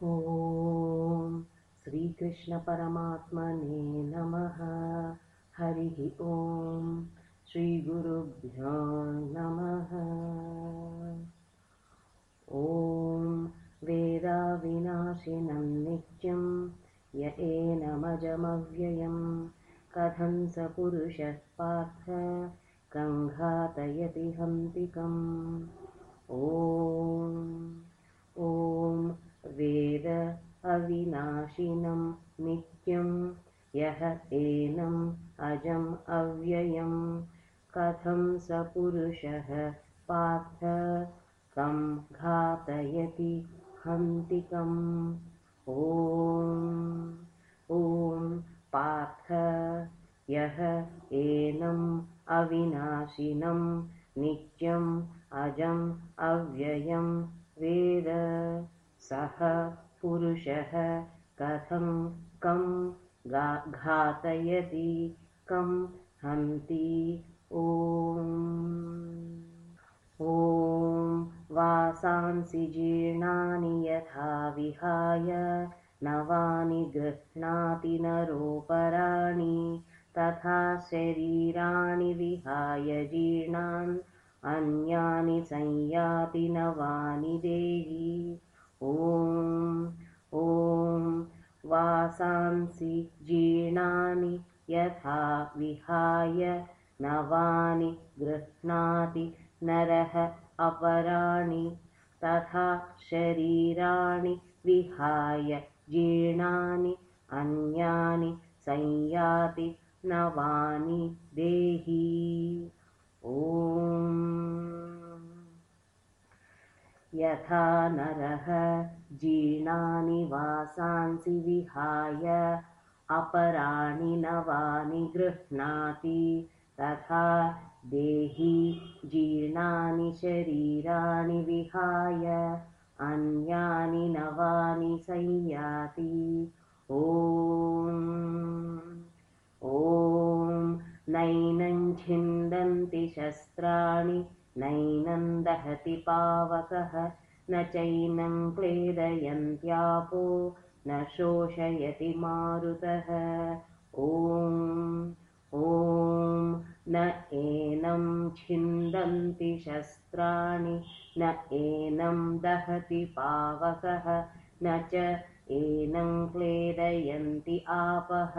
ॐ श्रीकृष्णपरमात्मने नमः। हरिः ॐ श्रीगुरुभ्यो नमः। ॐ वेदाविनाशिनं नित्यं य एनमजमव्ययं कथं स पुरुषः पार्थ कङ्घातयति हन्तिकम्। ॐ वेद अविनाशिनं नित्यं यः एनम् अजम् अव्ययं कथं स पुरुषः पार्थ कं घातयति हन्तिकम्। ॐ पार्थ यः एनम् अविनाशिनं नित्यम् अजम् अव्ययं वेद सः पुरुषः कथं कं घातयति कं हन्ति। ॐ वासांसि जीर्णानि यथा विहाय नवानि गृह्णाति नरोपराणि तथा शरीराणि विहाय जीर्णान् अन्यानि संयाति नवानि देहि। ॐ वासांसि जीर्णानि यथा विहाय नवानि गृह्णाति नरः अपराणि तथा शरीराणि विहाय जीर्णानि अन्यानि संयाति नवानि देहि। ॐ यथा नरः जीर्णानि वासांसि विहाय अपराणि नवानि गृह्णाति तथा देही जीर्णानि शरीराणि विहाय अन्यानि नवानि संयाति। ॐ नैनं छिन्दन्ति शस्त्राणि नैनं दहति पावकः न चैनं क्लेदयन्त्यापो न शोषयति मारुतः। ॐ न एनं छिन्दन्ति शस्त्राणि न एनं दहति पावकः न च एनं क्लेदयन्ति आपः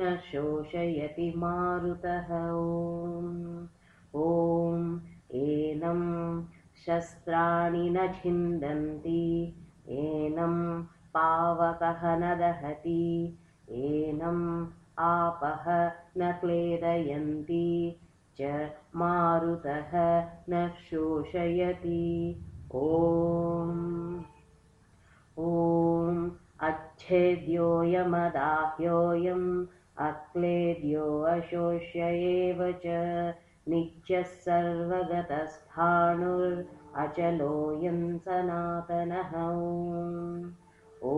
न शोषयति मारुतः। ॐ एनं शस्त्राणि न छिन्दन्ति एनं पावकः न दहति एनम् आपः न क्लेदयन्ति च मारुतः न शोषयति। ॐ अच्छेद्योऽयमदाह्योऽयम् अक्लेद्यो अशोष्य एव च नित्यः सर्वगतस्थाणुरचलोऽयं सनातनः। ॐ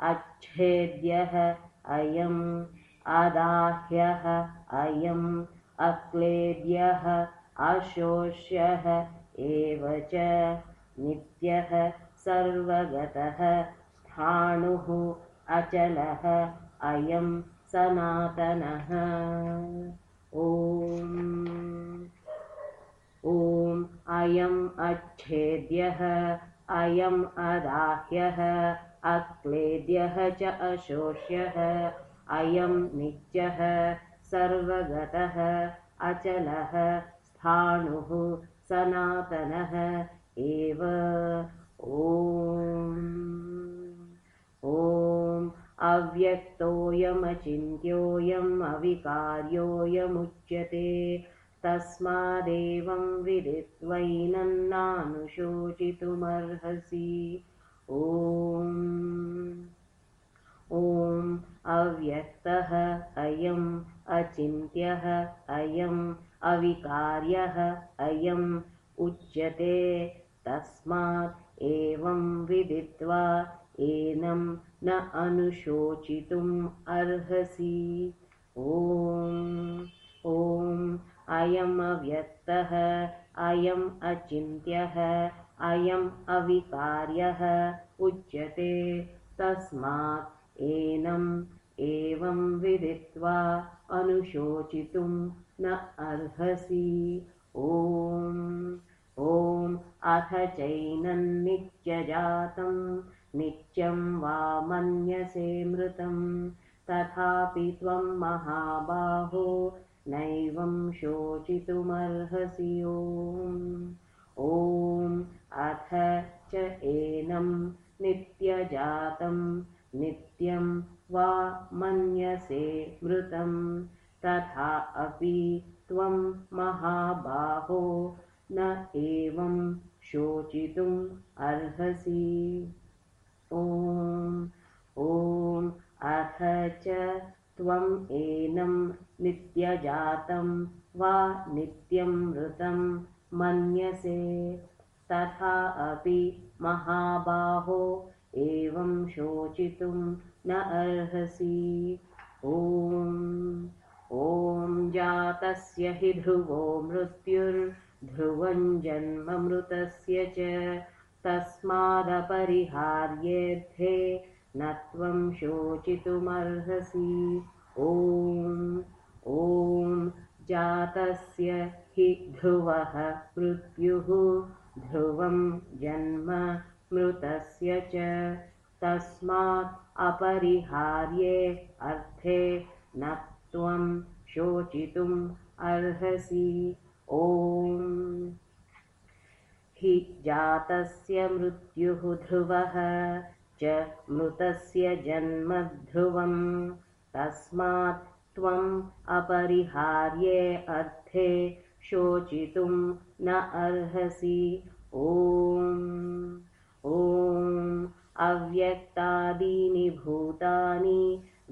अच्छेद्यः अयम् अदाह्यः अयम् अक्लेद्यः अशोष्यः एव च नित्यः सर्वगतः स्थाणुः अचलः अयं सनातनः। ॐ अयम् अच्छेद्यः अयम् अदाह्यः अक्लेद्यः च अशोष्यः अयं नित्यः सर्वगतः अचलः स्थाणुः सनातनः एव। ॐ अव्यक्तोऽयमचिन्त्योऽयम् अविकार्योऽयमुच्यते तस्मादेवं विदित्वैनं नानुशोचितुमर्हसि। ॐ अव्यक्तः अयम् अचिन्त्यः अयम् अविकार्यः अयम् उच्यते तस्मात् एवं विदित्वा एनं न अनुशोचितुम् अर्हसि। ॐ अयम् अव्यक्तः अयम् अचिन्त्यः अयम् अविकार्यः उच्यते तस्मात् एनम् एवं विदित्वा अनुशोचितुं न अर्हसि। ॐ अथ चैनं नित्यजातं नित्यं वा मन्यसे मृतं तथापि त्वं महाबाहो नैवं शोचितुमर्हसि। ॐ अथ च एनं नित्यजातं नित्यं वा मन्यसे मृतं तथा अपि त्वं महाबाहो न एवं शोचितुम् अर्हसि। ॐ अथ च त्वम् एनं नित्यजातं वा नित्यं मृतं मन्यसे तथा अपि महाबाहो एवं शोचितुं न अर्हसि। ॐ जातस्य हि ध्रुवो मृत्युर्ध्रुवं जन्म मृतस्य च तस्मादपरिहार्येऽर्थे न त्वं शोचितुमर्हसि। ॐ जातस्य हि ध्रुवः मृत्युः ध्रुवं जन्म मृतस्य च तस्मात् अपरिहार्ये अर्थे न त्वं शोचितुम् अर्हसि। ॐ हि जातस्य मृत्युः ध्रुवः च मृतस्य जन्म ध्रुवं तस्मात् त्वम् अपरिहार्ये अर्थे शोचितुं न अर्हसि। ॐ अव्यक्तादीनि भूतानि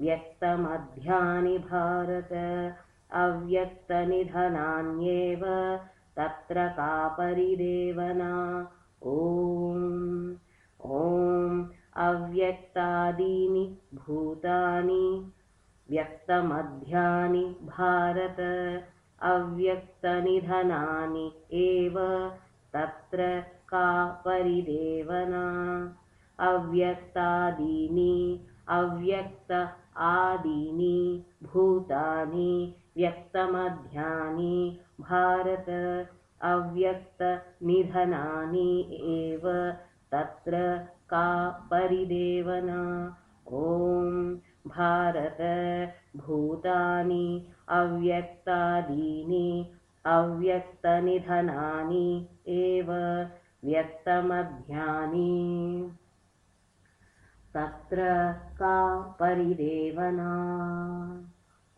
व्यक्तमध्यानि भारत अव्यक्तनिधनान्येव तत्र का परिदेवना। ॐ अव्यक्तादीनि भूतानि व्यक्तमध्यानि भारत अव्यक्तनिधनानि एव तत्र का परिदेवना। अव्यक्तादीनि अव्यक्त आदीनि भूतानि व्यक्तमध्यानि भारत अव्यक्तनिधनानि एव तत्र का परिदेवना। ॐ भारत भूतानि अव्यक्तादीनि अव्यक्तनिधनानि एव व्यक्तमध्यानि तत्र का परिदेवना।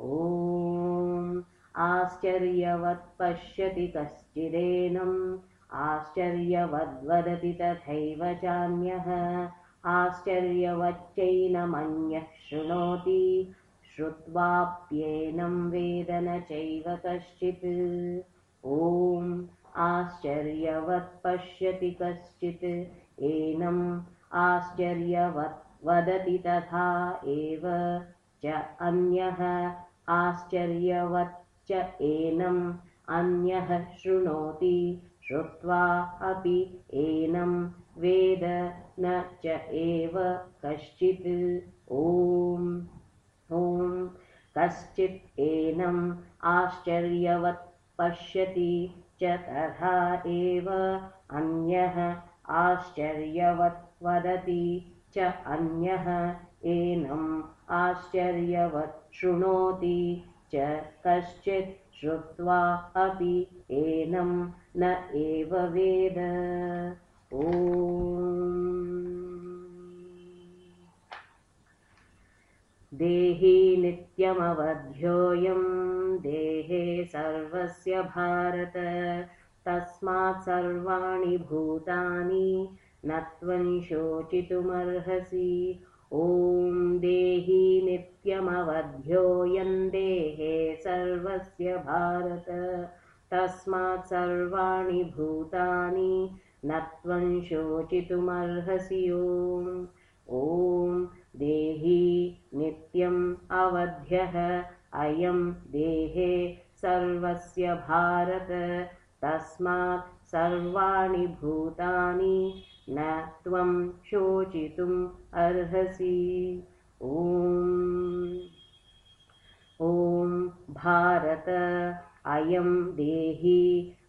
ॐ आश्चर्यवत् पश्यति कश्चिदेनम् आश्चर्यवद्वदति तथैव चान्यः आश्चर्यवच्चैनमन्यः शृणोति श्रुत्वाप्येनं वेद न चैव कश्चित्। ॐ आश्चर्यवत् पश्यति कश्चित् एनम् आश्चर्यवत् वदति तथा एव च अन्यः आश्चर्यवच्च एनम् अन्यः शृणोति श्रुत्वा अपि एनं वेद न च एव कश्चित्। ॐ कश्चित् एनम् आश्चर्यवत् पश्यति च तथा एव अन्यः आश्चर्यवत् वदति च अन्यः एनम् आश्चर्यवत् शृणोति च कश्चित् श्रुत्वा अपि एनं न एव वेद। ॐ देहि नित्यमवध्योऽयं देहे सर्वस्य भारत तस्मात् सर्वाणि भूतानि न त्वं शोचितुमर्हसि। ॐ देहि नित्यमवध्योऽयं देहे सर्वस्य भारत तस्मात् सर्वाणि भूतानि न त्वं शोचितुमर्हसि। ॐ देहि नित्यम् अवध्यः अयं देहे सर्वस्य भारत तस्मात् सर्वाणि भूतानि न त्वं शोचितुम् अर्हसि। ॐ भारत अयं देही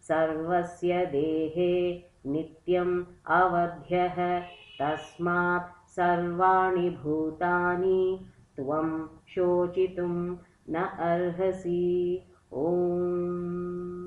सर्वस्य देहे नित्यम् अवध्यः तस्मात् सर्वाणि भूतानि त्वं शोचितुं न अर्हसि। ॐ